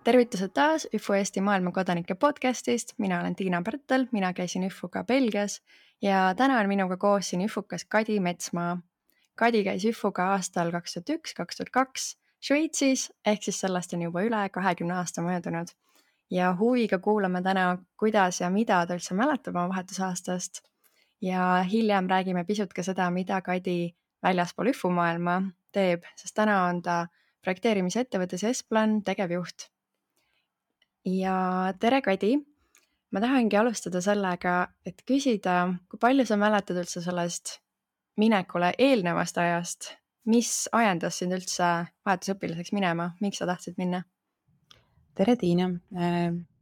Tervitused taas ÜFO Eesti maailmakodanike podcastist, mina olen Tiina Pärtel, mina käisin ÜFO-ga Belgias ja täna on minuga koos siin ÜFO-kas Kadi Metsmaa. Kadi käis ÜFO-ga aastal 2001-2002 Šveitsis, ehk siis sellest on juba üle 20 aasta möödunud. Ja huviga kuulame täna, kuidas ja mida ta üldse mäletab oma vahetusaastast. Ja hiljem räägime pisut ka seda, mida Kadi väljaspool ÜFO maailma teeb, sest täna on ta projekteerimisettevõttes Esplan tegevjuht. Ja tere, Kadi! Ma tahangi alustada sellega, et küsida, kui palju sa mäletad üldse sellest minekule eelnevast ajast, mis ajendas sind üldse vahetusõpilaseks minema, miks sa tahtsid minna? Tere, Tiina!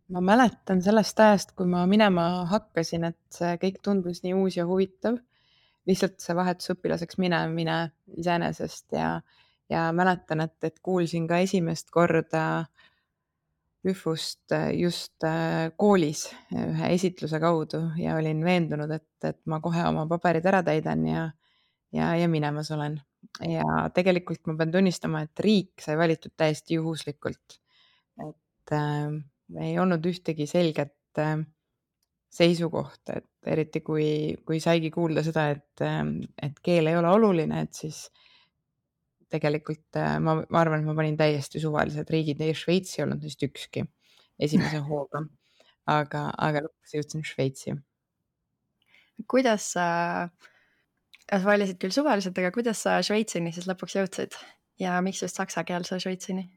Ma mäletan sellest ajast, kui ma minema hakkasin, et see kõik tundus nii uus ja huvitav. Lihtsalt see vahetusõpilaseks minemine iseenesest ja mäletan, et kuulsin ka esimest korda ÜFO-st just koolis ühe esitluse kaudu ja olin veendunud, et ma kohe oma paberid ära täidan ja minemas olen. Ja tegelikult ma pean tunnistama, et riik sai valitud täiesti juhuslikult. Et ei olnud ühtegi selget seisukohta, et eriti kui saigi kuulda seda, et keel ei ole oluline, et siis tegelikult ma arvan, et ma panin täiesti suvalised riigid ja Šveits ei olnud neist ükski esimese hooga, aga lõpuks jõudsin Šveitsi. Kuidas sa valisid küll suvaliselt, aga kuidas sa Šveitsini siis lõpuks jõudsid ja miks just saksakeelse Šveitsini?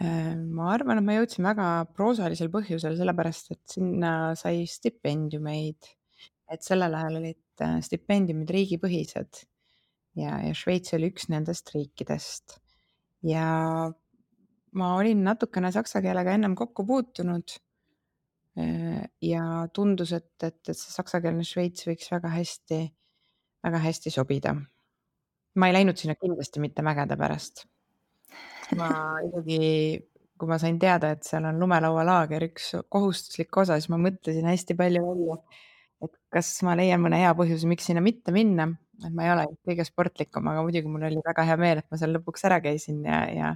Ma arvan, et ma jõudsin väga proosalisel põhjusel, sellepärast et sinna sai stipendiumeid, et sellel ajal olid stipendiumid riigipõhised ja Šveits oli üks nendest riikidest. Ja ma olin natukene saksa keelega ennem kokku puutunud ja tundus, et see saksakeelne Šveits võiks väga hästi sobida. Ma ei läinud sinna kindlasti mitte mägede pärast. Ma isegi, kui ma sain teada, et seal on lumelaualaager üks kohustuslik osa, siis ma mõtlesin hästi palju välja, et kas ma leian mõne hea põhjuse, miks sinna mitte minna. Et ma ei ole kõige sportlikum, aga muidugi mul oli väga hea meel, et ma seal lõpuks ära käisin ja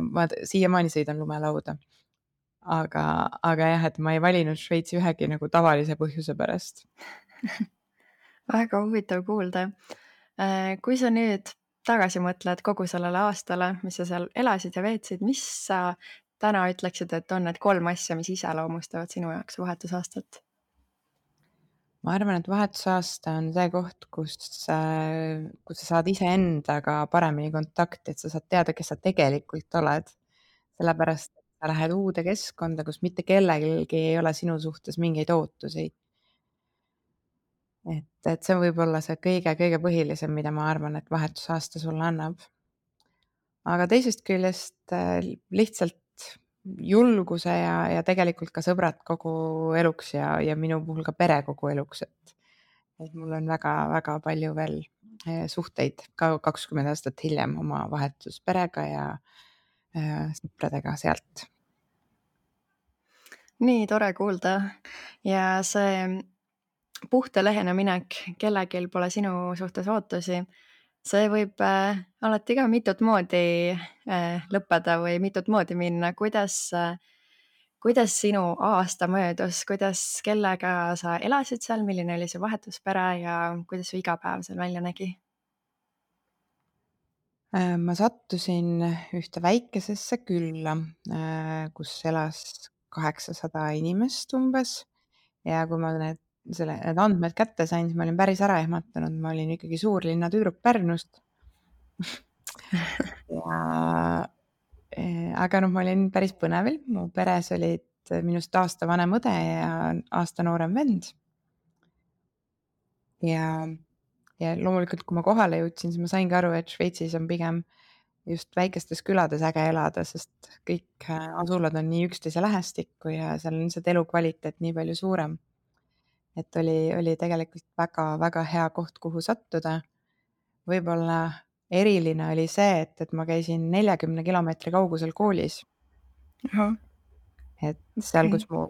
ma siiamaani sõidan lumelauda. Aga jah, et ma ei valinud Šveitsi ühegi nagu tavalise põhjuse pärast. Väga huvitav kuulda. Kui sa nüüd tagasi mõtled kogu sellele aastale, mis sa seal elasid ja veetsid, mis sa täna ütleksid, et on need 3 asja, mis iseloomustavad sinu jaoks vahetusaastat? Ma arvan, et vahetusaasta on see koht, kus sa saad iseendaga paremini kontakti, et sa saad teada, kes sa tegelikult oled. Sellepärast, et sa lähed uude keskkonda, kus mitte kellelgi ei ole sinu suhtes mingeid ootusi. Et see võib olla see kõige põhilisem, mida ma arvan, et vahetusaasta sulle annab. Aga teisest küljest lihtsalt julguse ja tegelikult ka sõbrad kogu eluks ja minu puhul ka pere kogu eluks, et mul on väga palju veel suhteid ka 20 aastat hiljem oma vahetusperega ja sõpradega sealt. Nii tore kuulda ja see puhta lehena minek, kellelgi pole sinu suhtes ootusi, see võib alati ka mitut moodi lõppeda või mitut moodi minna. Kuidas sinu aasta möödus, kellega sa elasid seal, milline oli see vahetuspere ja kuidas su igapäev seal välja nägi? Ma sattusin ühte väikesesse külla, kus elas 800 inimest umbes ja kui ma need andmed kätte sain, siis ma olin päris ära ehmatanud, ma olin ikkagi suurlinna tüdruk Pärnust. Aga ma olin päris põnevil, mu peres olid minust aasta vanem õde ja aasta noorem vend. Ja loomulikult, kui ma kohale jõudsin, siis ma saingi aru, et Šveitsis on pigem just väikestes külades äge elada, sest kõik asulad on nii üksteise lähestikku ja seal on lihtsalt elukvaliteet nii palju suurem. Et oli tegelikult väga hea koht, kuhu sattuda. Võib-olla eriline oli see, et ma käisin 40 kilomeetri kaugusel koolis. Et seal, kus mu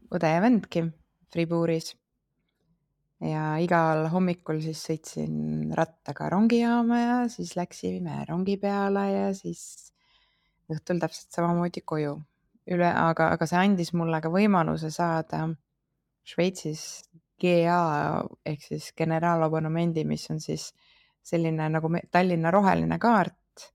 õde ja vendki Fribourgis. Ja igal hommikul siis sõitsin rattaga rongijaama ja siis läksime rongi peale ja siis õhtul täpselt samamoodi koju. Aga see andis mulle ka võimaluse saada Šveitsis GA ehk siis generaalabonnemendi, mis on siis selline nagu Tallinna roheline kaart,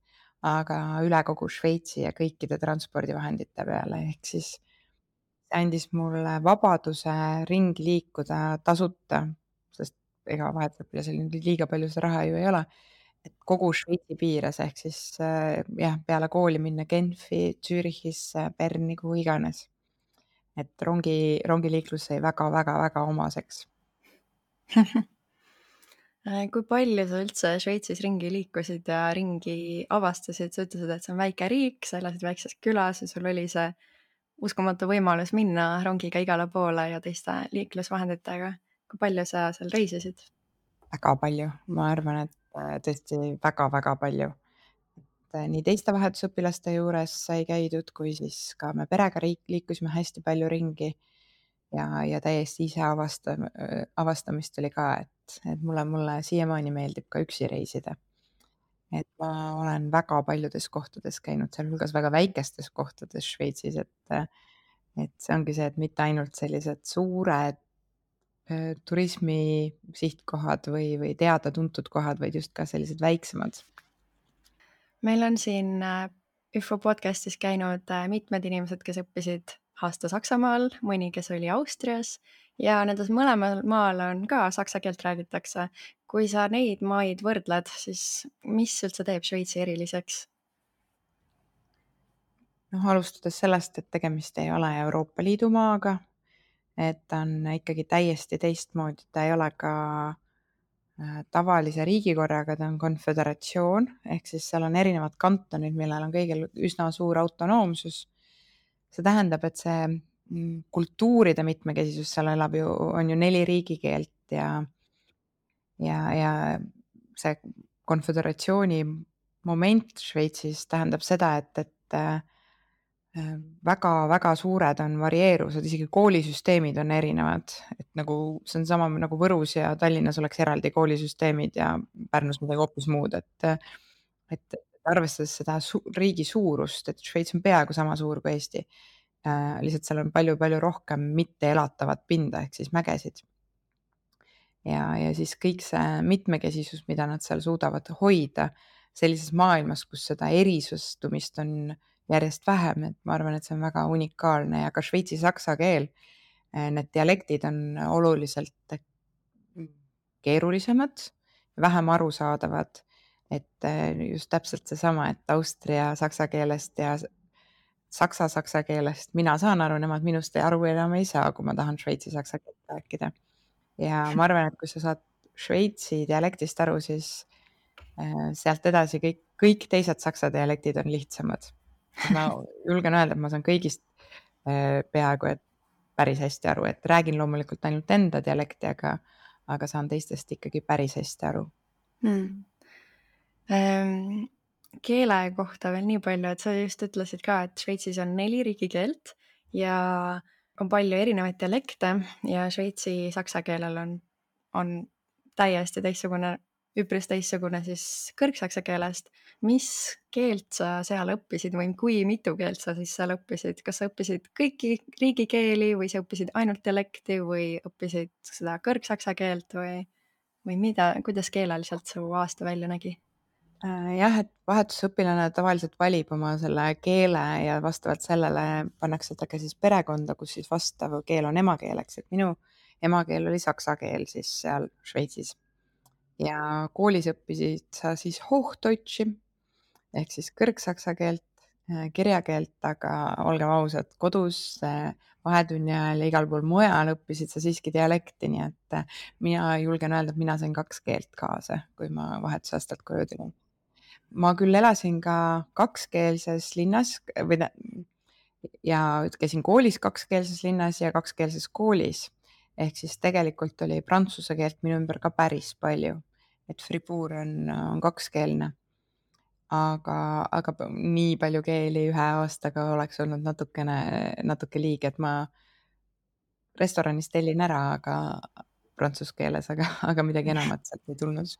aga üle kogu Šveitsi ja kõikide transpordivahendite peale, ehk siis see andis mulle vabaduse ringi liikuda tasuta, sest ega vahetusõpilasel nüüd liiga palju seda raha ju ei ole, et kogu Šveitsi piires ehk siis jah, peale kooli minna Genfi, Zürichisse, Berni, kuhu iganes. Et rongiliiklus sai väga omaseks. Kui palju sa üldse Šveitsis ringi liikusid ja ringi avastasid? Sa ütlesid, et see on väike riik, sa elasid väikses külas ja sul oli see uskumatu võimalus minna rongiga igale poole ja teiste liiklusvahenditega. Kui palju sa seal reisisid? Väga palju, ma arvan, et tõesti väga palju. Et nii teiste vahetusõpilaste juures sai käidud, kui siis ka me perega liikusime hästi palju ringi ja täiesti ise avastamist oli ka, et mulle siiamaani meeldib ka üksi reisida. Et ma olen väga paljudes kohtades käinud, sealhulgas väga väikestes kohtades Šveitsis, et see ongi see, et mitte ainult sellised suured turismi sihtkohad või teada-tuntud kohad, vaid just ka sellised väiksemad. Meil on siin ÜFO podcastis käinud mitmed inimesed, kes õppisid aasta Saksamaal, mõni, kes oli Austrias ja nendes mõlemal maal on ka saksa keelt räägitakse. Kui sa neid maid võrdled, siis mis üldse teeb Šveitsi eriliseks? Noh, alustades sellest, et tegemist ei ole Euroopa Liidu maaga, et ta on ikkagi täiesti teistmoodi, ta ei ole ka tavalise riigikorraga, ta on konföderatsioon, ehk siis seal on erinevad kantonid, millel on kõigil üsna suur autonoomsus. See tähendab, et see kultuuride mitmekesisus, seal on ju 4 riigikeelt ja see konföderatsiooni moment Šveitsis tähendab seda, et väga suured on varieeruvused, isegi koolisüsteemid on erinevad, et nagu see on sama nagu Võrus ja Tallinnas oleks eraldi koolisüsteemid ja Pärnus midagi hoopis muud, et arvestades seda riigi suurust, et Šveits on peaaegu sama suur kui Eesti, lihtsalt seal on palju rohkem mitteelatavat pinda ehk siis mägesid. Ja siis kõik see mitmekesisus, mida nad seal suudavad hoida sellises maailmas, kus seda erisustumist on järjest vähem, et ma arvan, et see on väga unikaalne ja ka šveitsi saksa keel, need dialektid on oluliselt keerulisemad, vähem arusaadavad, et just täpselt seesama, et austria saksa keelest ja saksa keelest mina saan aru, nemad minust aru enam ei saa, kui ma tahan šveitsi saksa keelt rääkida. Ja ma arvan, et kui sa saad šveitsi dialektist aru, siis sealt edasi kõik teised saksa dialektid on lihtsamad. Ma julgen öelda, et ma saan kõigist peaaegu et päris hästi aru, et räägin loomulikult ainult enda dialekti, aga saan teistest ikkagi päris hästi aru. Keele kohta veel nii palju, et sa just ütlesid ka, et Šveitsis on 4 riigikeelt ja on palju erinevaid dialekte ja šveitsi saksa keelel on täiesti teistsugune, üpris teistsugune siis kõrgsaksa keelest. Mis keelt sa seal õppisid või kui mitu keelt sa siis seal õppisid? Kas sa õppisid kõiki riigikeeli või sa õppisid ainult dialekti või õppisid seda kõrgsaksa keelt või kuidas keeleliselt su aasta välja nägi? Jah, et vahetusõpilane tavaliselt valib oma selle keele ja vastavalt sellele pannakse ta ka siis perekonda, kus siis vastav keel on emakeeleks, et minu emakeel oli saksa keel siis seal Šveitsis. Ja koolis õppisid sa siis Hochdeutshi ehk siis kõrgsaksa keelt, kirjakeelt, aga olgem ausad, kodus vahetunni ajal ja igal pool mujal õppisid sa siiski dialekti, nii et mina julgen öelda, et mina sain 2 keelt kaasa, kui ma vahetusaastalt koju tulin. Ma küll elasin ka kakskeelses linnas ja käisin koolis kakskeelses linnas ja kakskeelses koolis. Ehk siis tegelikult oli prantsuse keelt minu ümber ka päris palju, et Fribourg on kakskeelne. Aga nii palju keeli ühe aastaga oleks olnud natuke liig, et ma restoranis tellin ära, aga prantsuse keeles, aga midagi enamat sealt ei tulnud.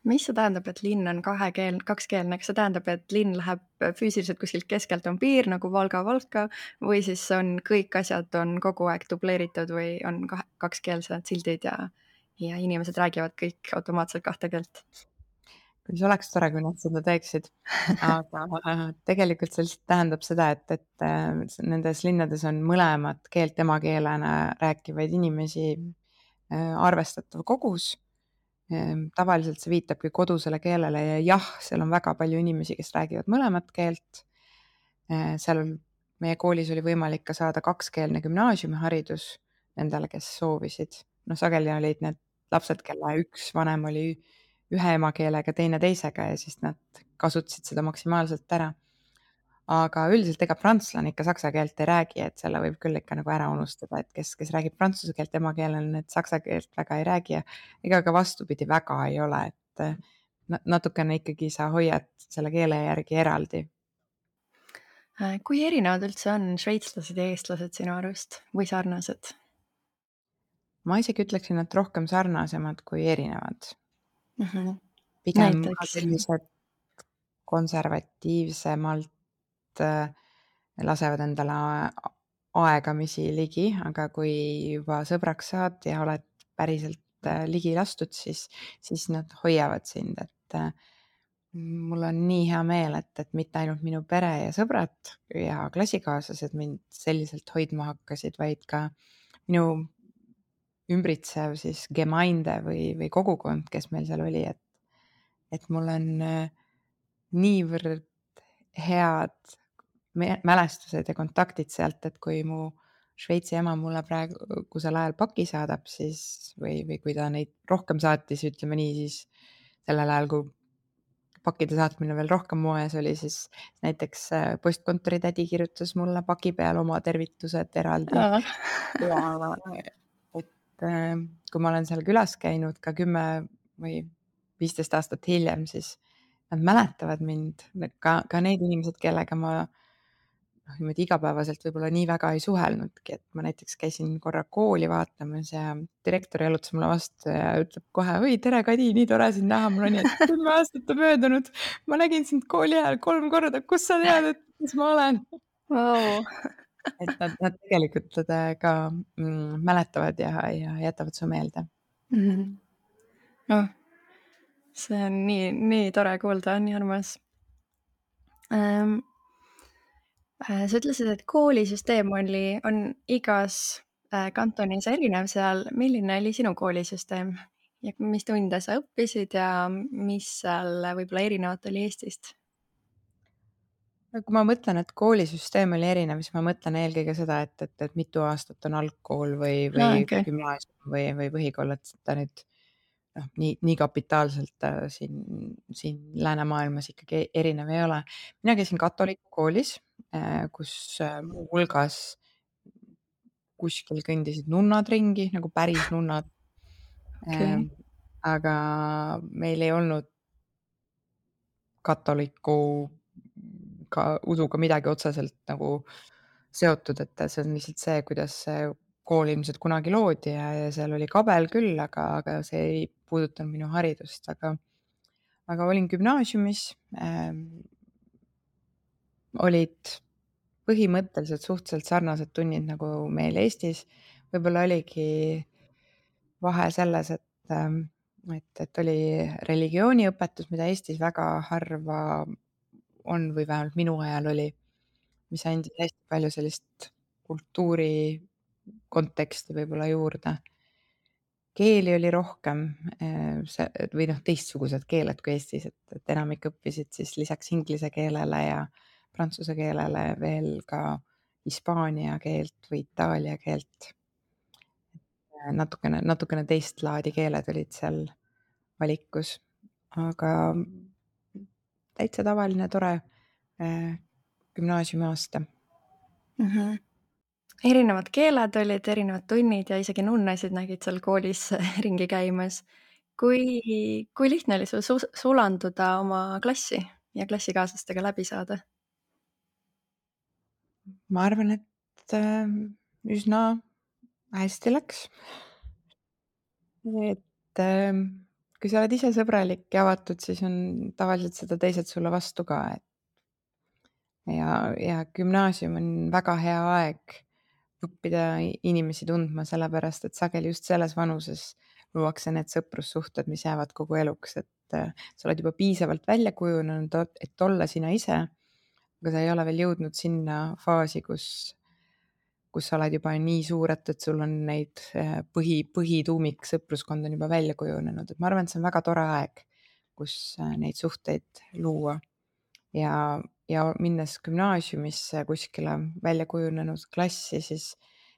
Mis see tähendab, et linn on kakskeelne? Kas see tähendab, et linn läheb füüsiliselt kuskilt keskelt on piir nagu Valga või siis on kõik asjad on kogu aeg dubleeritud või on kakskeelsed sildid ja inimesed räägivad kõik automaatselt kahte keelt? kuis oleks tore, kui nad seda teeksid. Aga tegelikult see lihtsalt tähendab seda, et nendes linnades on mõlemat keelt emakeelena rääkivaid inimesi arvestatav kogus. Tavaliselt see viitabki kodusele keelele ja jah, seal on väga palju inimesi, kes räägivad mõlemat keelt. Seal meie koolis oli võimalik ka saada kakskeelne gümnaasiumiharidus nendele, kes soovisid. Noh, sageli olid need lapsed, kelle üks vanem oli ühe emakeelega, teine teisega ja siis nad kasutasid seda maksimaalselt ära. Aga üldiselt ega prantslane ikka saksa keelt ei räägi, et selle võib küll ikka nagu ära unustada, et kes räägib prantsuse keelt emakeelena, need saksa keelt väga ei räägi ja ega ka vastupidi väga ei ole, et natukene ikkagi sa hoiad selle keele järgi eraldi. Kui erinevad üldse on šveitslased ja eestlased sinu arust või sarnased? Ma isegi ütleksin, et rohkem sarnasemad kui erinevad. Mhm. Pigem ka Näiteks? sellised konservatiivsemalt lasevad endale aegamisi ligi, aga kui juba sõbraks saad ja oled päriselt ligi lastud, siis nad hoiavad sind, et mul on nii hea meel, et mitte ainult minu pere ja sõbrad ja klassikaaslased mind selliselt hoidma hakkasid, vaid ka minu ümbritsev siis Gemeinde või kogukond, kes meil seal oli, et mul on niivõrd head mälestused ja kontaktid sealt, et kui mu Šveitsi ema mulle praegusel ajal paki saadab, siis või kui ta neid rohkem saatis, ütleme nii, siis sellel ajal, kui pakkide saatmine veel rohkem moes oli, siis näiteks postkontori tädi kirjutas mulle paki peal oma tervitused eraldi Aa. ja et kui ma olen seal külas käinud ka 10 või 15 aastat hiljem, siis nad mäletavad mind, ka need inimesed, kellega ma noh, niimoodi igapäevaselt võib-olla nii väga ei suhelnudki, et ma näiteks käisin korra kooli vaatamas ja direktor jalutas mulle vastu ja ütleb kohe: "Oi, tere, Kadi, nii tore sind näha." mul on nii, et 10 aastat on möödunud. Ma nägin sind kooli ajal 3 korda, kust sa tead, et kes ma olen? Vau! Et nad tegelikult ka mäletavad ja jätavad su meelde. Mhm. Oh, see on nii tore kuulda, nii armas. Ähm, Sa ütlesid, et koolisüsteem on igas, kantonis erinev seal. Milline oli sinu koolisüsteem ja mis tunde sa õppisid ja mis seal võib-olla erinevat oli Eestist? No kui ma mõtlen, et koolisüsteem oli erinev, siis ma mõtlen eelkõige seda, et mitu aastat on algkool või Aa, okei. gümnaasium või põhikool, et ta nüüd noh, nii kapitaalselt siin läänemaailmas ikkagi erinev ei ole. Mina käisin katoliku koolis, kus muu hulgas kuskil kõndisid nunnad ringi, nagu päris nunnad. Okei. Aga meil ei olnud katoliku ka usuga midagi otseselt nagu seotud, et see on lihtsalt see, kuidas see kool ilmselt kunagi loodi ja seal oli kabel küll, aga see ei puudutanud minu haridust, aga olin gümnaasiumis, olid põhimõtteliselt suhteliselt sarnased tunnid nagu meil Eestis. võib-olla oligi vahe selles, et oli religiooniõpetus, mida Eestis väga harva on või vähemalt minu ajal oli, mis andis hästi palju sellist kultuuri konteksti võib-olla juurde. Keeli oli rohkem, see või noh, teistsugused keeled kui Eestis, et enamik õppisid siis lisaks inglise keelele ja prantsuse keelele veel ka hispaania keelt või itaalia keelt. natukene teist laadi keeled olid seal valikus, aga täitsa tavaline tore gümnaasiumiaasta. Mhm. Erinevad keeled olid, erinevad tunnid ja isegi nunnasid nägid seal koolis ringi käimas. Kui lihtne oli sul sulanduda oma klassi ja klassikaaslastega läbi saada? Ma arvan, et üsna hästi läks. Et kui sa oled ise sõbralik ja avatud, siis on tavaliselt seda teised sulle vastu ka, et ja gümnaasium on väga hea aeg õppida inimesi tundma, sellepärast et sageli just selles vanuses luuakse need sõprussuhted, mis jäävad kogu eluks, et sa oled juba piisavalt välja kujunenud, et olla sina ise, aga sa ei ole veel jõudnud sinna faasi, kus sa oled juba nii suur, et sul on neid põhituumik sõpruskond on juba välja kujunenud, et ma arvan, et see on väga tore aeg, kus neid suhteid luua. Ja minnes gümnaasiumisse kuskile välja kujunenud klassi, siis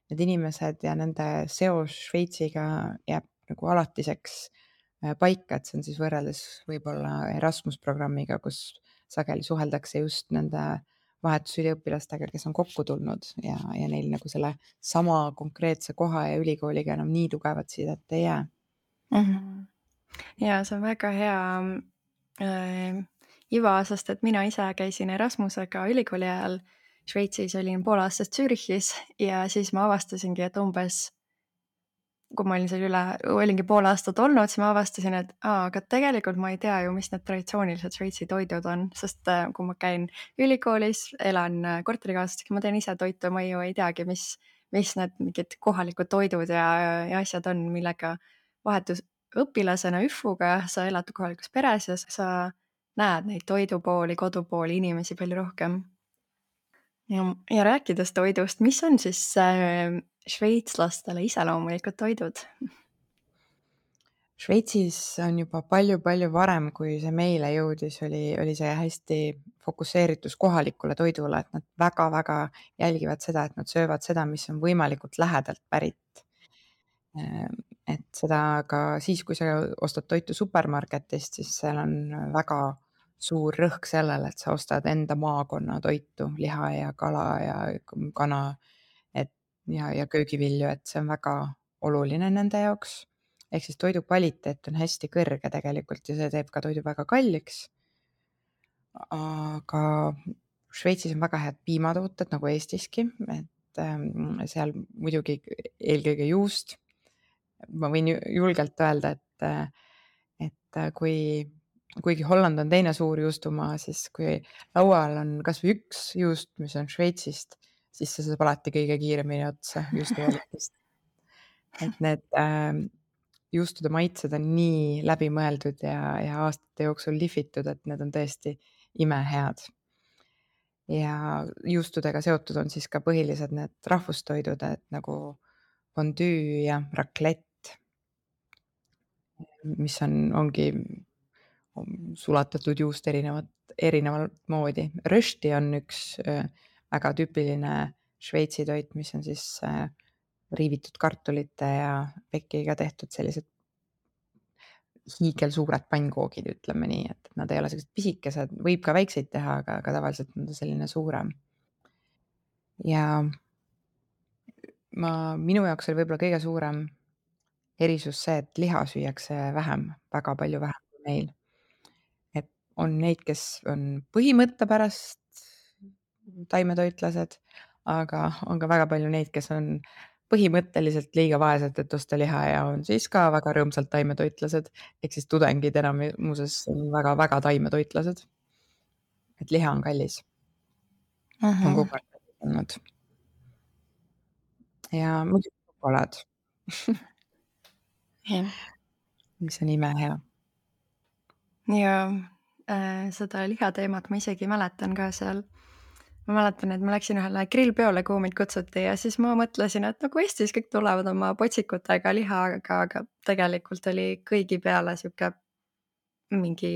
need inimesed ja nende seos Šveitsiga jääb nagu alatiseks paika, et see on siis võrreldes võib-olla Erasmus programmiga, kus sageli suheldakse just nende vahetusüliõpilastega, kes on kokku tulnud ja neil nagu selle sama konkreetse koha ja ülikooliga enam nii tugevat sidet ei jää. Ja see on väga hea iva, sest et mina ise käisin Erasmusega ülikooli ajal Šveitsis, olin pool aastat Zürichis ja siis ma avastasingi, et umbes kui ma olin seal olingi pool aastat olnud, siis ma avastasin, et aga tegelikult ma ei tea ju, mis need traditsioonilised Šveitsi toidud on, sest kui ma käin ülikoolis, elan korterikaaslastega, ma teen ise toitu, ma ju ei teagi, mis need mingid kohalikud toidud ja asjad on, millega vahetusõpilasena ÜFU-ga sa elad kohalikus peres ja sa näed neid toidupooli, kodupooli, inimesi palju rohkem. Ja rääkides toidust, mis on siis šveitslastele iseloomulikud toidud? Šveitsis on juba palju-palju varem, kui see meile jõudis, oli see hästi fokusseeritus kohalikule toidule, et nad väga-väga jälgivad seda, et nad söövad seda, mis on võimalikult lähedalt pärit. Et seda ka siis, kui sa ostad toitu supermarketist, siis seal on väga suur rõhk sellele, et sa ostad enda maakonna toitu, liha ja kala ja kana, et ja köögivilju, et see on väga oluline nende jaoks. Ehk siis toidu kvaliteet on hästi kõrge tegelikult ja see teeb ka toidu väga kalliks. Aga Šveitsis on väga head piimatooted nagu Eestiski, et seal muidugi eelkõige juust. Ma võin julgelt öelda, et kuigi Holland on teine suur juustumaa, siis kui laual on kas või üks juust, mis on Šveitsist, siis see saab alati kõige kiiremini otsa juustuvalikust. Et need juustude maitsed on nii läbimõeldud ja aastate jooksul lihvitud, et need on tõesti imehead. Ja juustudega seotud on siis ka põhilised need rahvustoidud, et nagu fondüü ja raclette, mis ongi sulatatud juust erinevat moodi. Rösti on üks väga tüüpiline Šveitsi toit, mis on siis riivitud kartulite ja pekiga tehtud sellised hiigelsuured pannkoogid, ütleme nii, et nad ei ole sellised pisikesed, võib ka väikseid teha, aga tavaliselt on ta selline suurem. Ja minu jaoks oli võib-olla kõige suurem erisus see, et liha süüakse vähem, väga palju vähem kui meil. Et on neid, kes on põhimõtte pärast taimetoitlased, aga on ka väga palju neid, kes on põhimõtteliselt liiga vaesed, et osta liha ja on siis ka väga rõõmsalt taimetoitlased. Ehk siis tudengid enamuses on väga-väga taimetoitlased. Et liha on kallis. On kogu aeg kallis olnud. Ja muidugi šokolaad, Jah. mis on imehea. Ja seda lihateemat ma isegi mäletan ka seal. Ma mäletan, et ma läksin ühele grillpeole, kuhu mind kutsuti ja siis ma mõtlesin, et nagu Eestis kõik tulevad oma potsikutega lihaga, aga tegelikult oli kõigi peale sihuke mingi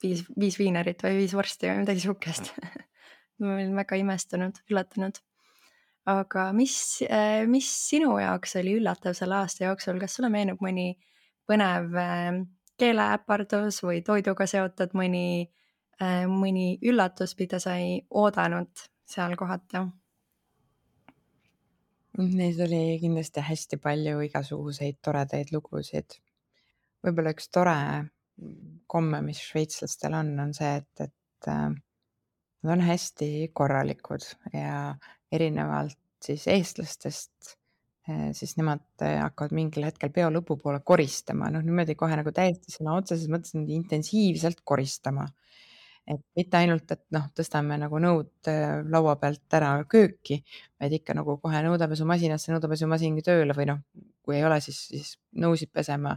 viis viinerit või 5 vorsti või midagi sihukest. Ma olin väga imestunud, üllatunud. Aga mis sinu jaoks oli üllatav selle aasta jooksul, kas sulle meenub mõni põnev keeleäpardus või toiduga seotud mõni üllatus, mida sa ei oodanud seal kohata? Neid oli kindlasti hästi palju igasuguseid toredaid lugusid. Võib-olla üks tore komme, mis šveitslastel on see, et nad on hästi korralikud ja erinevalt siis eestlastest siis nemad hakkavad mingil hetkel peo lõpupoole koristama, noh niimoodi kohe nagu täiesti sõna otseses mõttes niimoodi intensiivselt koristama. Et mitte ainult, et noh, tõstame nagu nõud laua pealt ära kööki, vaid ikka nagu kohe nõudepesumasinasse, nõudepesumasingi tööle või noh, kui ei ole, siis nõusid pesema,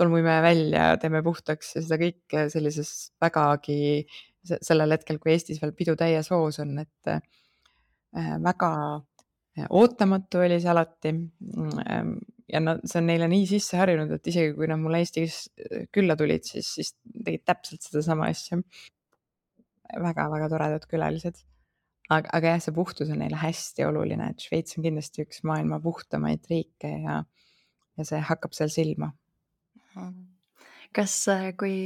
tolmuimeja välja, teeme puhtaks ja seda kõike sellises vägagi sellel hetkel, kui Eestis veel pidu täies hoos on, et väga ootamatu oli see alati. Ja see on neile nii sisse harjunud, et isegi kui nad mulle Eestis külla tulid, siis tegid täpselt sedasama asja. Väga-väga toredad külalised. Aga jah, see puhtus on neile hästi oluline, et Šveits on kindlasti üks maailma puhtamaid riike ja see hakkab seal silma. Kas, kui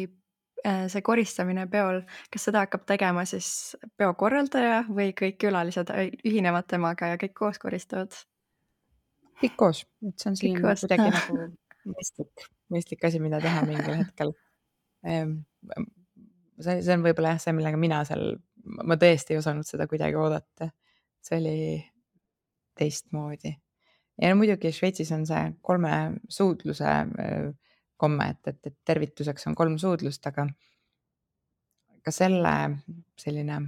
see koristamine peol, kas seda hakkab tegema siis peo korraldaja või kõik külalised ühinevad temaga ja kõik koos koristavad? Kõik koos, et see on Kõik selline koos? kuidagi nagu mõistlik asi, mida teha mingil hetkel. See on võib-olla jah see, millega mina seal ma tõesti ei osanud seda kuidagi oodata. See oli teistmoodi. Ja no muidugi Šveitsis on see 3 suudluse komme, et tervituseks on 3 suudlust, aga ka selle selline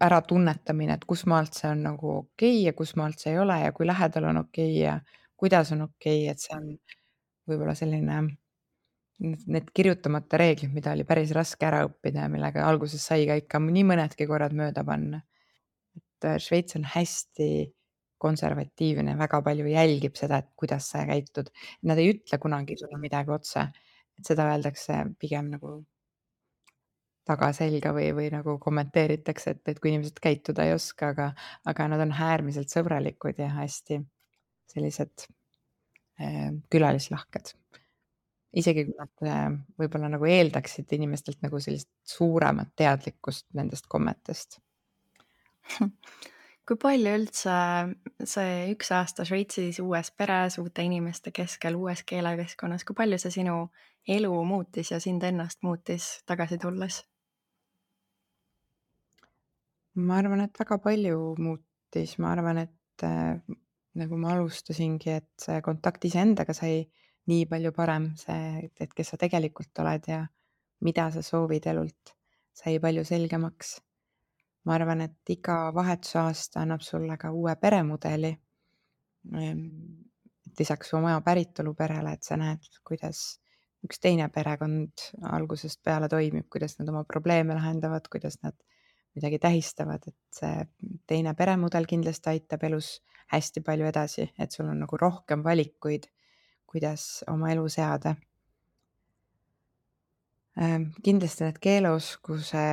äratunnetamine, et kusmaalt see on nagu okei ja kusmaalt see ei ole ja kui lähedal on okei ja kuidas on okei, et see on võib-olla selline need kirjutamata reeglid, mida oli päris raske ära õppida ja millega alguses sai ka ikka nii mõnedki korrad mööda panna. Et Šveits on hästi konservatiivne, väga palju jälgib seda, et kuidas sa käitud. Nad ei ütle kunagi sulle midagi otse, et seda öeldakse pigem nagu tagaselga või nagu kommenteeritakse, et kui inimesed käituda ei oska, aga nad on äärmiselt sõbralikud ja hästi sellised külalislahked. Isegi kui nad võib-olla nagu eeldaksid inimestelt nagu sellist suuremat teadlikkust nendest kommetest. Kui palju üldse see 1 aasta Šveitsis uues peres, uute inimeste keskel, uues keelekeskkonnas, kui palju see sinu elu muutis ja sind ennast muutis tagasi tulles? Ma arvan, et väga palju muutis, ma arvan, et nagu ma alustasingi, et see kontakt iseendaga sai nii palju parem, see, et kes sa tegelikult oled ja mida sa soovid elult, sai palju selgemaks. Ma arvan, et iga vahetusaasta annab sulle ka uue peremudeli. Et lisaks oma päritolu perele, et sa näed, kuidas üks teine perekond algusest peale toimib, kuidas nad oma probleeme lahendavad, kuidas nad midagi tähistavad, et see teine peremudel kindlasti aitab elus hästi palju edasi, et sul on nagu rohkem valikuid, kuidas oma elu seada. Kindlasti need keeleoskuse,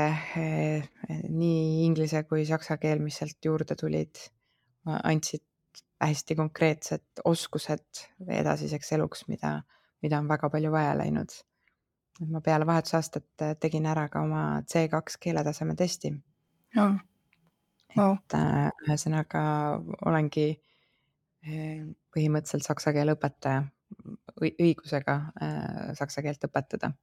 nii inglise kui saksa keel, mis sealt juurde tulid, andsid hästi konkreetsed oskused edasiseks eluks, mida on väga palju vaja läinud. Ma peale vahetusaastat tegin ära ka oma C2 keeletaseme testi. Oh, wow. Ühesõnaga olengi põhimõtteliselt saksa keele õpetaja, õigusega saksa keelt õpetada.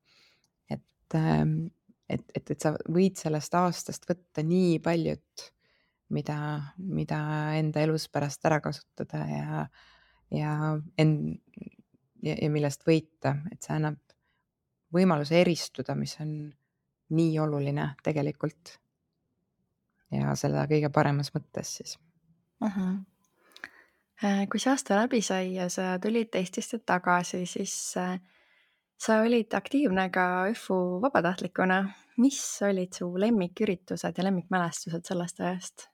Et sa võid sellest aastast võtta nii paljut, mida enda elus pärast ära kasutada ja millest võita, et see annab võimaluse eristuda, mis on nii oluline tegelikult. Ja selle kõige paremas mõttes siis. Kui see aasta läbi sai ja sa tulid Eestisse tagasi, siis sa olid aktiivne ka ÜFU vabatahtlikuna. Mis olid su lemmiküritused ja lemmikmälestused sellest ajast?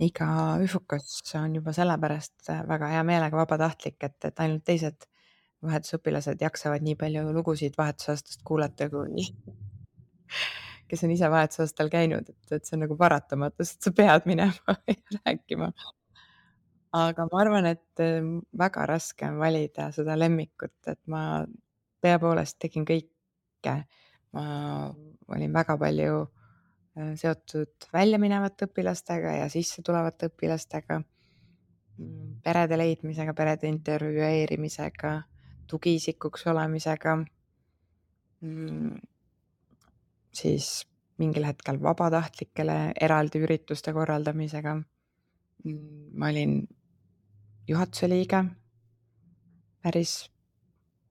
Iga ÜFUkas on juba sellepärast väga hea meelega vabatahtlik, et ainult teised vahetusõpilased jaksavad nii palju lugusid vahetusaastast kuulata, kui kes on ise vahetusaastal käinud, et see on nagu paratamatus, et sa pead minema ja rääkima. Aga ma arvan, et väga raske on valida seda lemmikut, et ma tõepoolest tegin kõike. Ma olin väga palju seotud väljaminevate õpilastega ja sisse tulevate õpilastega, perede leidmisega, perede intervjueerimisega, tugiisikuks olemisega, siis mingil hetkel vabatahtlikele eraldi ürituste korraldamisega. Ma olin juhatuse liige päris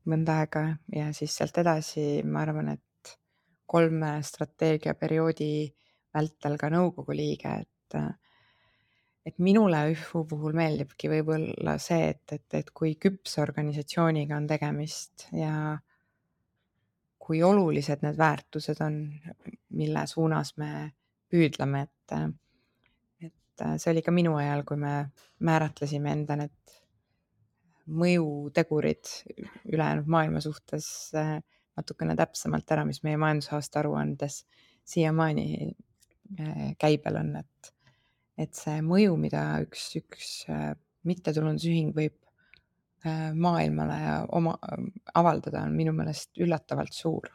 mõnda aega ja siis sealt edasi ma arvan, et 3 strateegiaperioodi vältel ka nõukogu liige, et minule ÜFU puhul meeldibki võib-olla see, et kui küpse organisatsiooniga on tegemist ja kui olulised need väärtused on, mille suunas me püüdleme, see oli ka minu ajal, kui me määratlesime enda need mõjutegurid ülejäänud maailma suhtes natukene täpsemalt ära, mis meie majandusaasta aruandes siiamaani käibel on, et see mõju, mida üks mittetulundusühing võib maailmale ja avaldada, on minu meelest üllatavalt suur.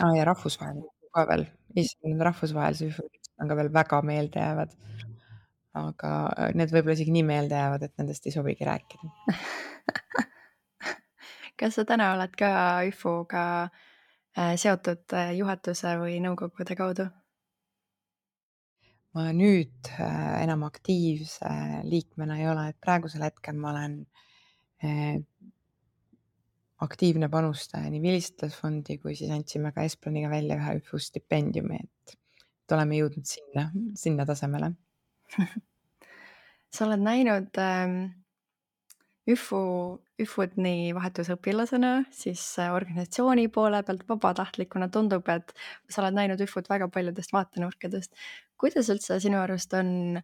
Ja rahvusvaheline ka veel, Eesti rahvusvahelise ühisud on ka veel väga meeldejäävad. Aga need võib-olla isegi nii meelde jäävad, et nendest ei sobigi rääkida. Kas sa täna oled ka ÜFU-ga seotud juhatuse või nõukogude kaudu? Ma nüüd enam aktiivse liikmena ei ole, et praegusel hetkel ma olen aktiivne panustaja nii Vilistlasfondi kui siis andsime ka Esplaniga välja ühe ÜFU stipendiumi, et oleme jõudnud sinna tasemele. Sa oled näinud ÜFU-d nii vahetusõpilasena, siis organisatsiooni poole pealt vabatahtlikuna tundub, et sa oled näinud ÜFU-d väga paljudest vaatenurkadest. Kuidas üldse sinu arust on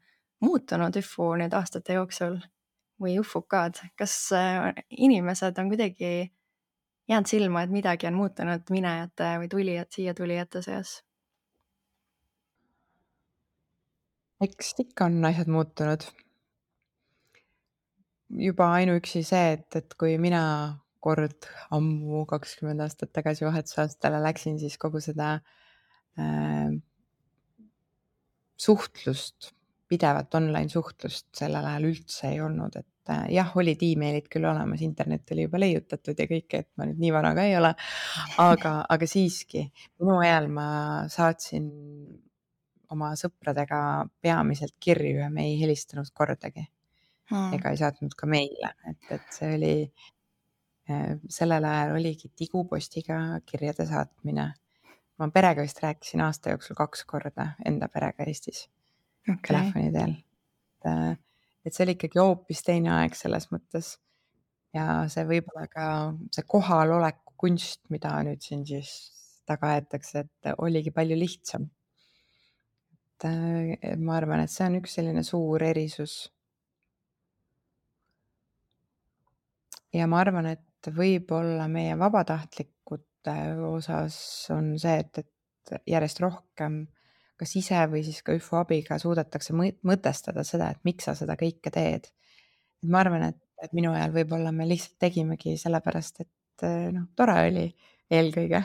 muutunud ÜFU nüüd aastate jooksul või ÜFUK-d? Kas inimesed on kuidagi jäänud silma, et midagi on muutunud minejate või siia tulijate seas? Eks ikka on asjad muutunud. Juba ainuüksi see, et kui mina kord ammu 20 aastat tagasi vahetusaastale läksin, siis kogu seda suhtlust, pidevat online suhtlust sellel ajal üldse ei olnud, et jah, olid emailid küll olemas, internet oli juba leiutatud ja kõike, et ma nüüd nii vana ka ei ole, aga siiski minu ajal ma saatsin oma sõpradega peamiselt kirju ja me ei helistanud kordagi ega ei saatnud ka meile, et see oli sellel ajal oligi tigupostiga kirjade saatmine. Ma perega vist rääkisin aasta jooksul 2 korda enda perega Eestis telefoni teel. Et see oli ikkagi hoopis teine aeg selles mõttes ja see võib-olla ka see kohaloleku kunst, mida nüüd siin siis taga aetakse, et oligi palju lihtsam. Et ma arvan, et see on üks selline suur erisus. Ja ma arvan, et võib-olla meie vabatahtlikute osas on see, et järjest rohkem kas ise või siis ka ÜFO abiga suudetakse mõtestada seda, et miks sa seda kõike teed. Et ma arvan, et minu ajal võib-olla me lihtsalt tegimegi sellepärast, et noh, tore oli eelkõige.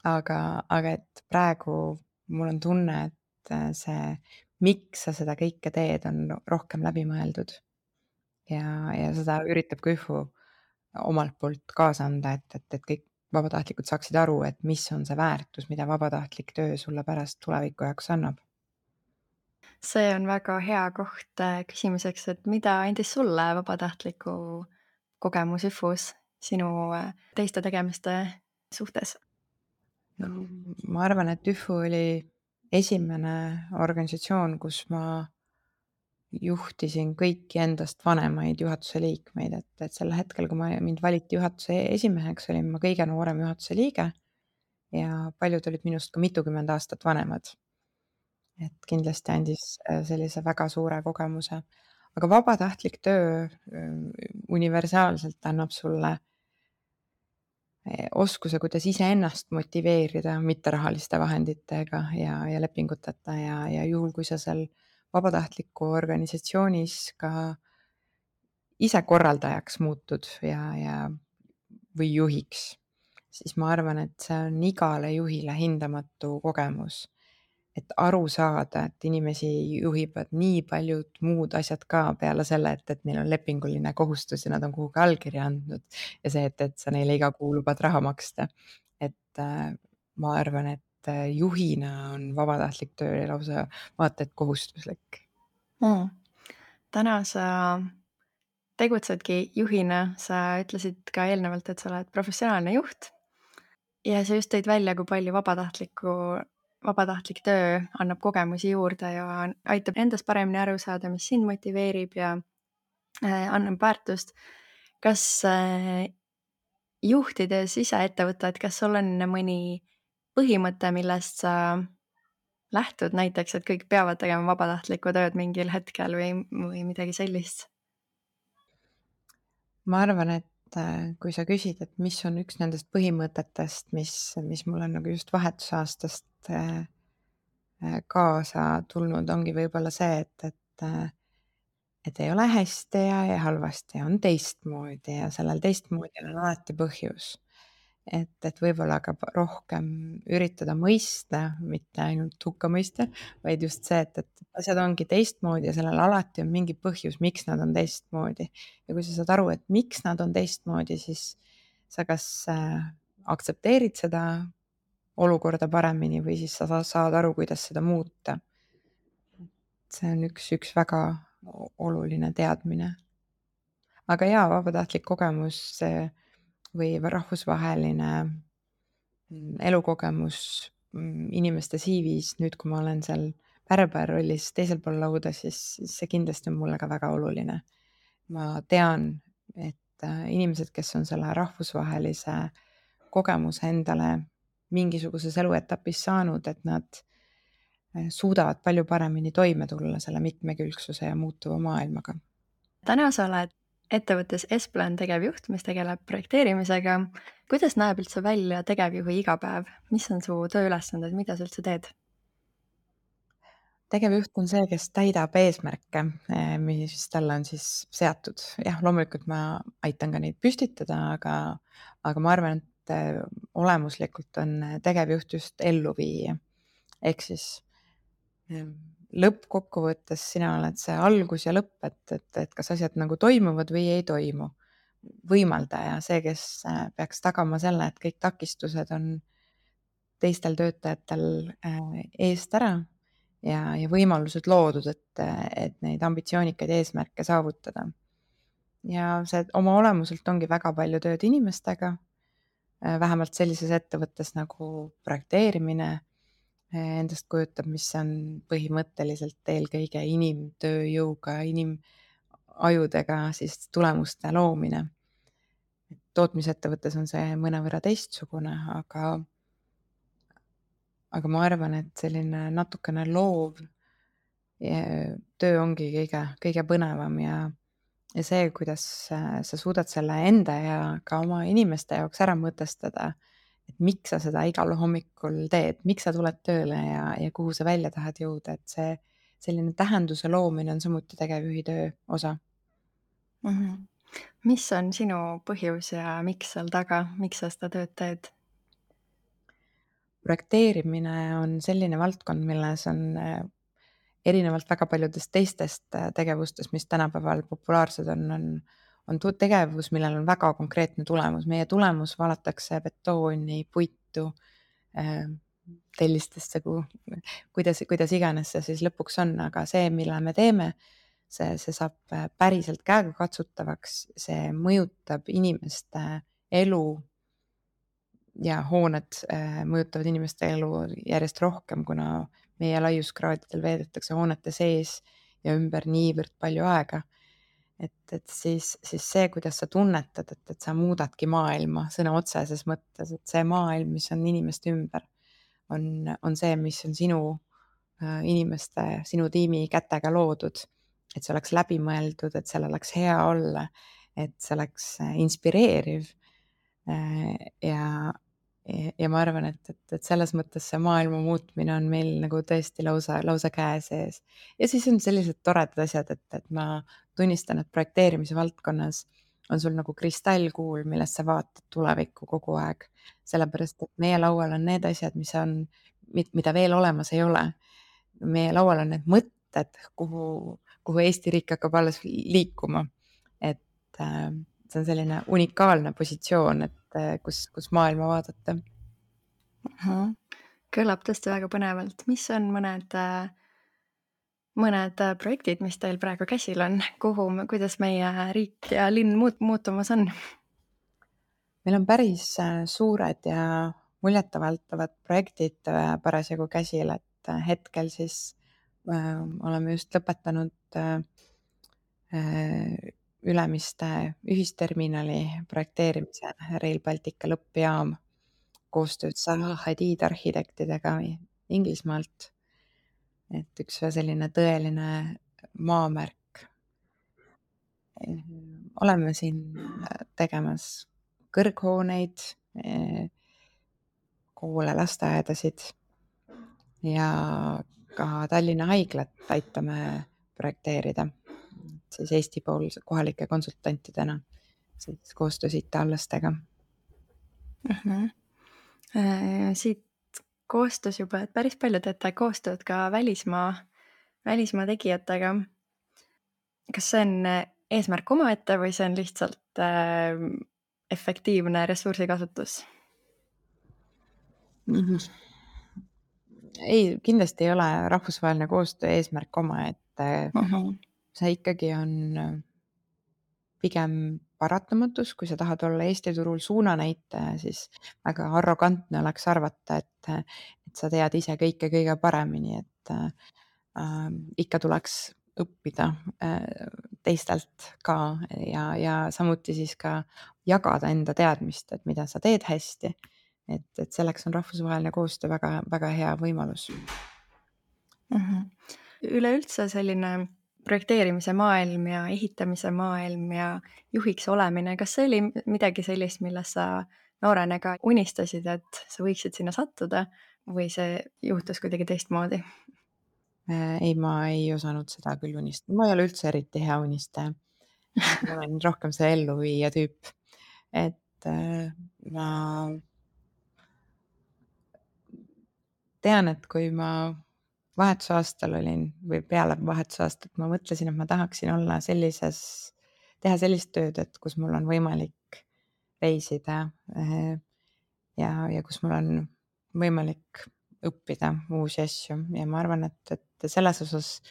Aga et praegu mul on tunne, et see, miks sa seda kõike teed, on rohkem läbi mõeldud. Ja seda üritab ka ÜFO omalt poolt kaasa anda, et kõik vabatahtlikud saaksid aru, et mis on see väärtus, mida vabatahtlik töö sulle pärast tuleviku jaoks annab. See on väga hea koht küsimuseks, et mida andis sulle vabatahtliku kogemus ÜFU-s sinu teiste tegemiste suhtes? Ma arvan, et ÜFO oli esimene organisatsioon, kus ma juhtisin kõiki endast vanemaid juhatuse liikmeid, et sel hetkel, kui mind valiti juhatuse esimeheks, olin ma kõige noorem juhatuse liige ja paljud olid minust ka mitukümmend aastat vanemad. Et kindlasti andis sellise väga suure kogemuse. Aga vabatahtlik töö universaalselt annab sulle oskuse, kuidas iseennast motiveerida mitterahaliste vahenditega ja lepinguteta ja juhul, kui sa seal vabatahtliku organisatsioonis ka ise korraldajaks muutud või juhiks, siis ma arvan, et see on igale juhile hindamatu kogemus. Et aru saada, et inimesi juhivad nii paljud muud asjad ka peale selle, et neil on lepinguline kohustus ja nad on kuhugi allkirja andnud ja see, et sa neile iga kuu lubad raha maksta. Et ma arvan, et juhina on vabatahtlik töö lausa vaata et kohustuslik. Täna sa tegutsedki juhina, sa ütlesid ka eelnevalt, et sa oled professionaalne juht ja sa just tõid välja, kui palju vabatahtlik töö annab kogemusi juurde ja aitab endast paremini aru saada, mis sind motiveerib ja annab väärtust. Kas juhtides ise ettevõtet, kas sul on mõni põhimõte, millest sa lähtud, näiteks, et kõik peavad tegema vabatahtlikku tööd mingil hetkel või midagi sellist? Ma arvan, et kui sa küsid, et mis on üks nendest põhimõtetest, mis mul on nagu just vahetusaastast kaasa tulnud, ongi võib-olla see, et ei ole hästi ja halvasti, on teistmoodi ja sellel teistmoodi on alati põhjus. Et võib-olla ka rohkem üritada mõista, mitte ainult hukka mõista, vaid just see, et asjad ongi teistmoodi ja sellel alati on mingi põhjus, miks nad on teistmoodi. Ja kui sa saad aru, et miks nad on teistmoodi, siis sa kas aktsepteerid seda olukorda paremini või siis sa saad aru, kuidas seda muuta. See on üks väga oluline teadmine. Aga jaa, vabatahtlik kogemus või rahvusvaheline elukogemus inimeste CV-s, nüüd kui ma olen seal pärber rollis teisel pool lauda, siis see kindlasti on mulle ka väga oluline. Ma tean, et inimesed, kes on selle rahvusvahelise kogemuse endale mingisuguses eluetapis saanud, et nad suudavad palju paremini toime tulla selle mitmekülgsuse ja muutuva maailmaga. Täna sa oled ettevõttes Esplan tegevjuht, mis tegeleb projekteerimisega. Kuidas näeb üldse välja tegevjuhi igapäev? Mis on su tööülesanded, mida sa üldse teed? Tegevjuht on see, kes täidab eesmärke, mis talle on siis seatud. Jah, loomulikult ma aitan ka neid püstitada, aga ma arvan, et olemuslikult on tegevjuht just elluviija. Ehk siis lõppkokkuvõttes sina oled see algus ja lõpp, et kas asjad nagu toimuvad või ei toimu. Võimaldaja, see, kes peaks tagama selle, et kõik takistused on teistel töötajatel eest ära ja võimalused loodud, et neid ambitsioonikaid eesmärke saavutada. Ja see oma olemuselt ongi väga palju tööd inimestega, vähemalt sellises ettevõttes nagu projekteerimine endast kujutab, mis on põhimõtteliselt eelkõige inimtööjõuga, inimajudega siis tulemuste loomine. Tootmisettevõttes on see mõnevõrra teistsugune, aga ma arvan, et selline natukene loov töö ongi kõige põnevam ja see, kuidas sa suudad selle enda ja ka oma inimeste jaoks ära mõtestada, et miks sa seda igal hommikul teed, miks sa tuled tööle ja kuhu sa välja tahad jõuda, et see selline tähenduse loomine on samuti tegevjuhi töö osa. Mis on sinu põhjus ja miks seal taga, miks sa seda tööd teed? Projekteerimine on selline valdkond, milles on erinevalt väga paljudest teistest tegevustest, mis tänapäeval populaarsed on tegevus, millel on väga konkreetne tulemus. Meie tulemus valatakse betooni, puitu, tellistesse, kuidas iganes see siis lõpuks on, aga see, mille me teeme, see saab päriselt käegakatsutavaks, see mõjutab inimeste elu ja hooned mõjutavad inimeste elu järjest rohkem, kuna meie laiuskraadidel veedetakse hoonete sees ja ümber niivõrd palju aega. Et siis see, kuidas sa tunnetad, et sa muudadki maailma sõna otseses mõttes, et see maailm, mis on inimeste ümber, on see, mis on sinu inimeste, sinu tiimi kätega loodud. Et see oleks läbimõeldud, et seal oleks hea olla, et see oleks inspireeriv ja ma arvan, et selles mõttes see maailma muutmine on meil nagu tõesti lausa käe sees. Ja siis on sellised toredad asjad, et ma tunnistan, et projekteerimise valdkonnas on sul nagu kristallkuul, millest sa vaatad tulevikku kogu aeg. Sellepärast, et meie laual on need asjad, mida veel olemas ei ole. Meie laual on need mõtted, kuhu Eesti riik hakkab alles liikuma. Et see on selline unikaalne positsioon, et kus maailma vaadata. Kõlab tõesti väga põnevalt. Mis on mõned projektid, mis teil praegu käsil on? Kuidas meie riik ja linn muutumas on? Meil on päris suured ja muljetavaldavad projektid parasjagu käsil, et hetkel siis oleme just lõpetanud Ülemiste ühisterminali projekteerimise, Rail Baltica lõppjaam koostöös Zaha Hadid arhitektidega Inglismaalt. Et üks selline tõeline maamärk. Oleme siin tegemas kõrghooneid, koole, lasteaedasid ja ka Tallinna Haiglat aitame projekteerida siis Eesti poolse kohalike konsultantidena siis koostöös IT-allastega. Siit koostöös juba, et päris palju teete koostööd ka välismaa tegijatega. Kas see on eesmärk omaette või see on lihtsalt efektiivne ressursikasutus? Ei, kindlasti ei ole rahvusvaheline koostöö eesmärk omaette. See ikkagi on pigem paratamatus, kui sa tahad olla Eesti turul suunanäitaja, siis väga arrogantne oleks arvata, et sa tead ise kõike kõige paremini, et ikka tuleks õppida teistelt ka ja samuti siis ka jagada enda teadmist, et mida sa teed hästi. Et selleks on rahvusvaheline koostöö väga, väga hea võimalus. Üleüldse selline projekteerimise maailm ja ehitamise maailm ja juhiks olemine, kas see oli midagi sellist, millest sa noorena ka unistasid, et sa võiksid sinna sattuda või see juhtus kuidagi teistmoodi? Ei, ma ei osanud seda küll unistada. Ma ei ole üldse eriti hea unistaja. Ma olen rohkem see elluviija tüüp. Et ma tean, et kui ma vahetusaastal olin või peale vahetusaastat, ma mõtlesin, et ma tahaksin olla teha sellist tööd, et kus mul on võimalik reisida ja kus mul on võimalik õppida uusi asju ja ma arvan, et selles osas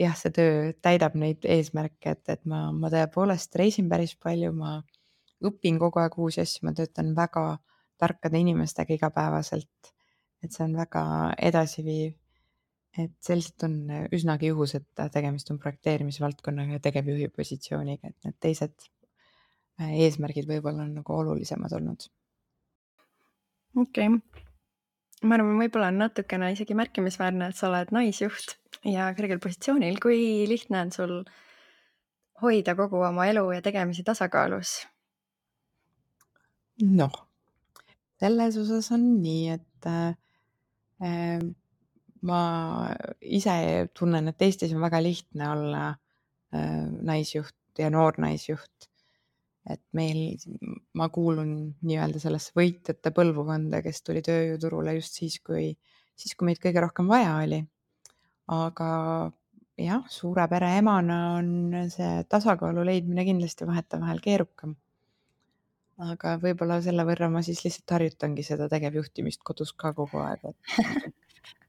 jah, see töö täidab neid eesmärke, et ma tõepoolest reisin päris palju, ma õpin kogu aeg uusi asju, ma töötan väga tarkade inimestega igapäevaselt, et see on väga edasiviiv. Et selliselt on üsnagi juhus, et tegemist on projekteerimisvaldkonnaga ja tegevjuhi positsiooniga, et need teised eesmärgid võib-olla on nagu olulisemad olnud. Okei. Ma arvan, võib-olla on natukene isegi märkimisväärne, et sa oled naisjuht ja kõrgel positsioonil. Kui lihtne on sul hoida kogu oma elu ja tegemisi tasakaalus? Noh, selles osas on nii, et ma ise tunnen, et Eestis on väga lihtne olla naisjuht ja noor naisjuht. Et ma kuulun nii-öelda sellesse võitjate põlvkonda, kes tuli tööjõuturule just siis, kui meid kõige rohkem vaja oli. Aga jah, suure pere emana on see tasakaalu leidmine kindlasti vahetevahel keerukam. Aga võib-olla selle võrra ma siis lihtsalt harjutangi seda tegevjuhtimist kodus ka kogu aeg, et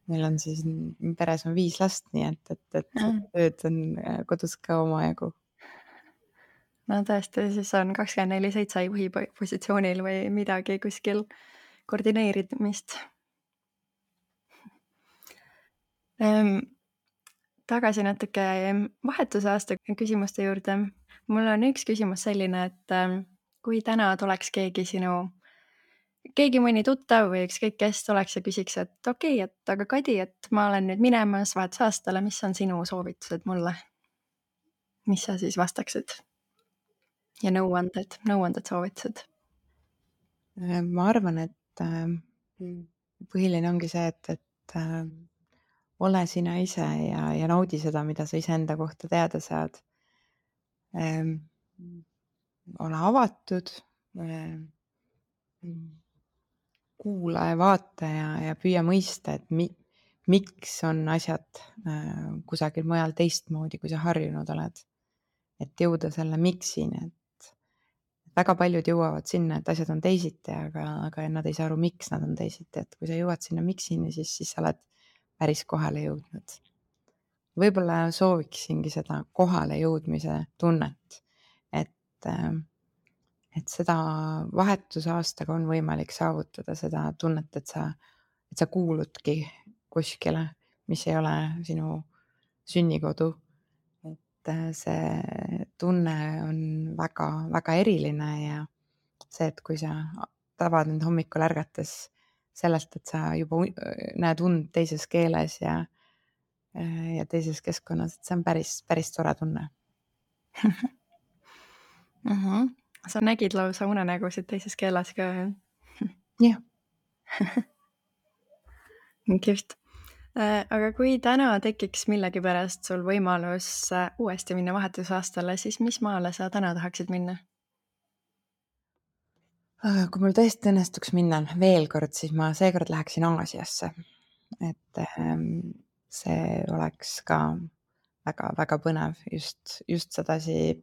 meil on siis peres on 5 last, nii et tööd on kodus ka omajagu. No tõesti, siis on 24/7 juhi positsioonil või midagi kuskil koordineerimist. Tagasi natuke vahetusaasta küsimuste juurde. Mul on üks küsimus selline, et kui täna tuleks keegi mõni tuttav või ükskõik kes tuleks ja küsiks, et okei, et aga Kadi, et ma olen nüüd minemas vahetusaastale, mis on sinu soovitused mulle? Mis sa siis vastaksid? Ja nõuanded, soovitused? Ma arvan, et põhiline ongi see, et ole sina ise ja naudi seda, mida sa iseenda kohta teada saad. Ole avatud, kuula ja vaata ja püüa mõista, et miks on asjad kusagil mujal teistmoodi, kui sa harjunud oled. Et jõuda selle miksini, et väga paljud jõuavad sinna, et asjad on teisiti, aga nad ei saa aru, miks nad on teisiti, et kui sa jõuad sinna miksini, siis sa oled päris kohale jõudnud. Võib-olla sooviksingi seda kohale jõudmise tunnet, et, et seda vahetusaastaga on võimalik saavutada seda tunnet, et sa kuuludki kuskile, mis ei ole sinu sünnikodu. Et see tunne on väga, väga eriline ja see, et kui sa tabad end hommikul ärgates sellest, et sa juba näed und teises keeles ja teises keskkonnas, et see on päris, päris tore tunne. Sa nägid lausa unenägusid teises keeles ka, jah? jah. Kihvt. Aga kui täna tekiks millegipärast sul võimalus uuesti minna vahetusaastale, siis mis maale sa täna tahaksid minna? Kui mul tõesti õnnestuks minna veel kord, siis ma seekord läheksin Aasiasse. Et see oleks ka väga-väga põnev just sedasi,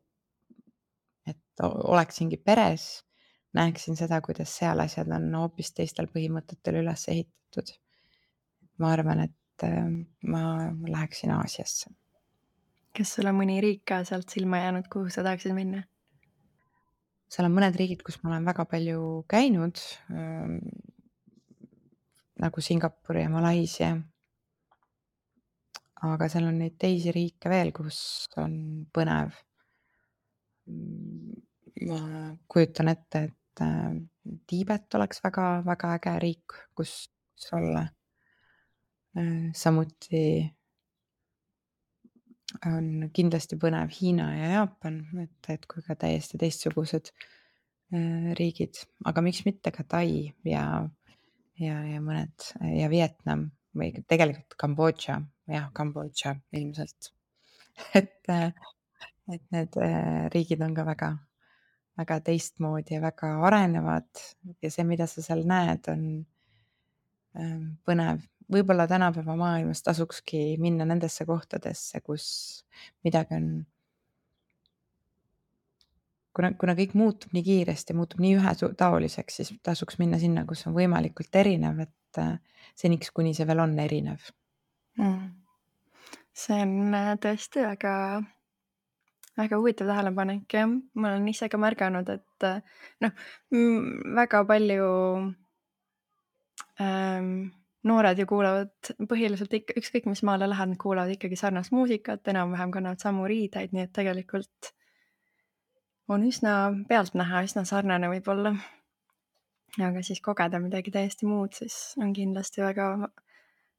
et oleksingi peres, näeksin seda, kuidas seal asjad on hoopis teistel põhimõtetel üles ehitatud. Ma arvan, et ma läheksin Aasiasse. Kas sul on mõni riik ka sealt silma jäänud, kuhu sa tahaksid minna? Seal on mõned riigid, kus ma olen väga palju käinud, nagu Singapur ja Malaisia. Aga seal on neid teisi riike veel, kus on põnev. Ma kujutan ette, et Tiibet oleks väga-väga äge riik, kus olla. Samuti on kindlasti põnev Hiina ja Jaapan, et kui ka täiesti teistsugused riigid, aga miks mitte ka Tai ja mõned ja Vietnam või tegelikult Kambodža, jah, Kambodža ilmselt. et need riigid on ka väga, väga teistmoodi ja väga arenevad ja see, mida sa seal näed, on põnev. Võib-olla tänapäeva maailmas tasukski minna nendesse kohtadesse, kus midagi on, kuna kõik muutub nii kiiresti, muutub nii ühetaoliseks, siis tasuks minna sinna, kus on võimalikult erinev, et seniks, kuni see veel on erinev. See on tõesti väga, väga huvitav tähelepanek, jah. Ma olen ise ka märganud, et väga palju noored ju kuulavad põhiliselt ikka, ükskõik mis maale lähed, nad kuulavad ikkagi sarnast muusikat, enam-vähem kannavad samu riideid, nii et tegelikult on üsna pealtnäha üsna sarnane võib-olla. Aga siis kogeda midagi täiesti muud, siis on kindlasti väga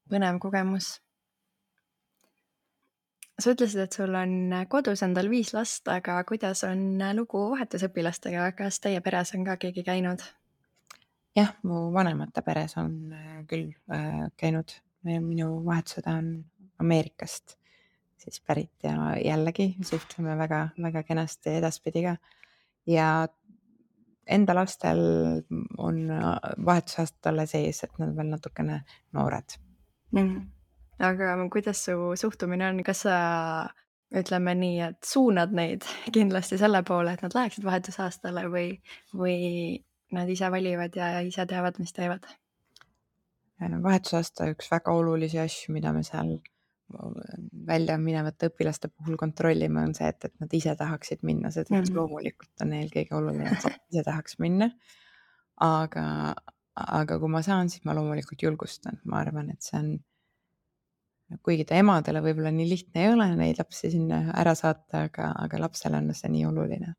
põnev kogemus. Sa ütlesid, et sul on kodus endal 5 last, aga kuidas on lugu vahetusõpilastega? Kas teie peres on ka keegi käinud? Jah, mu vanemate peres on küll käinud. Minu vahetusõde on Ameerikast siis pärit ja jällegi suhtleme väga kenasti edaspidi ka. Ja enda lastel on vahetusaasta alles ees, et nad veel natukene noored. Aga kuidas su suhtumine on? Kas sa, ütleme nii, et suunad neid kindlasti selle poole, et nad läheksid vahetusaastale või nad ise valivad ja ise teavad, mis teevad? Vahetusaasta üks väga olulisi asju, mida me seal välja minevate õpilaste puhul kontrollime, on see, et nad ise tahaksid minna, sest loomulikult on neil kõige oluline, et ise tahaks minna. Aga kui ma saan, siis ma loomulikult julgustan. Ma arvan, et see on, kuigi ta emadele võib-olla nii lihtne ei ole neid lapsi sinna ära saata, aga lapsele on see nii oluline.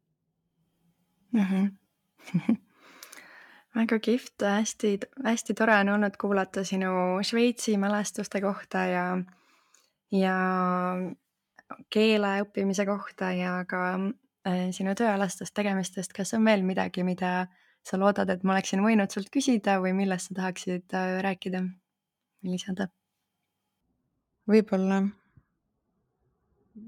Väga kihvt, hästi tore on olnud kuulata sinu Šveitsi mälestuste kohta ja keele õppimise kohta ja ka sinu tööalastest tegemistest. Kas on veel midagi, mida sa loodad, et ma oleksin võinud sult küsida või millest sa tahaksid rääkida või lisada? Võib-olla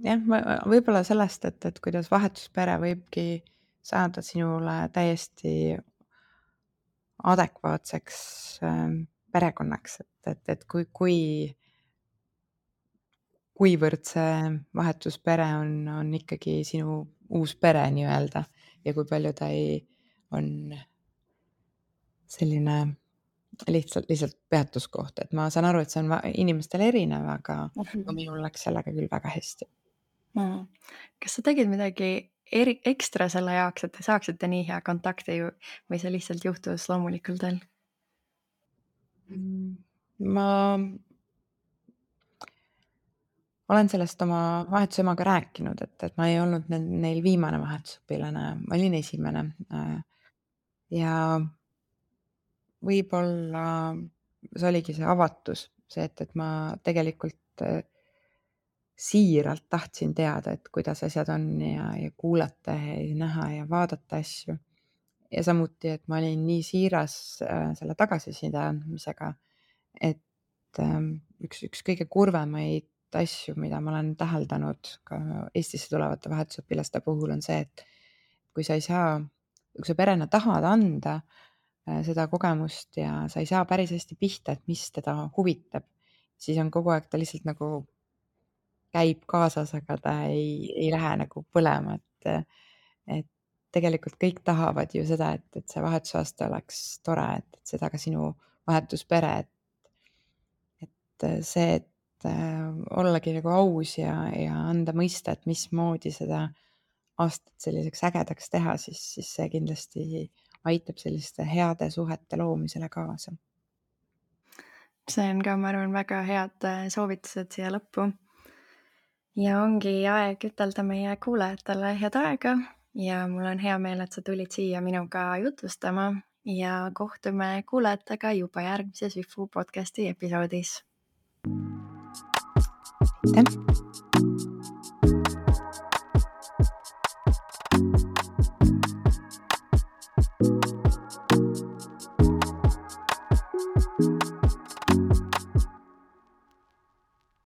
jah, võib-olla sellest, et kuidas vahetuspere võibki saada sinule täiesti adekvaatseks perekonnaks, et kuivõrd see vahetuspere on ikkagi sinu uus pere nii-öelda ja kui palju ta on selline lihtsalt peatuskoht, et ma saan aru, et see on inimestel erinev, aga minul läks sellega küll väga hästi. Kas sa tegid midagi ekstra selle jaoks, et te saaksite nii hea kontakti või see lihtsalt juhtus loomulikul teel? Ma olen sellest oma vahetusemaga rääkinud, et ma ei olnud neil viimane vahetusõpilane, ma olin esimene. Ja võib-olla see oligi see avatus, see, et ma tegelikult siiralt tahtsin teada, et kuidas asjad on ja kuulata ja näha ja vaadata asju. Ja samuti, et ma olin nii siiras selle tagasiside andmisega, et üks kõige kurvemaid asju, mida ma olen täheldanud ka Eestisse tulevate vahetusõpilaste puhul, on see, et kui sa perena tahad anda seda kogemust ja sa ei saa päris hästi pihta, et mis teda huvitab, siis on kogu aeg ta lihtsalt nagu käib kaasas, aga ta ei lähe nagu põlema, et tegelikult kõik tahavad ju seda, et see vahetusaasta oleks tore, et seda ka sinu vahetuspere, et see, et ollagi nagu aus ja anda mõista, et mismoodi seda aastat selliseks ägedaks teha, siis see kindlasti aitab selliste heade suhete loomisele kaasa. See on ka, ma arvan, väga head soovitused siia lõppu. Ja ongi aeg ütelda meie kuulajatele head aega ja mul on hea meel, et sa tulid siia minuga jutustama ja kohtume kuulajatega juba järgmises Üfu podcasti episoodis. Aitäh!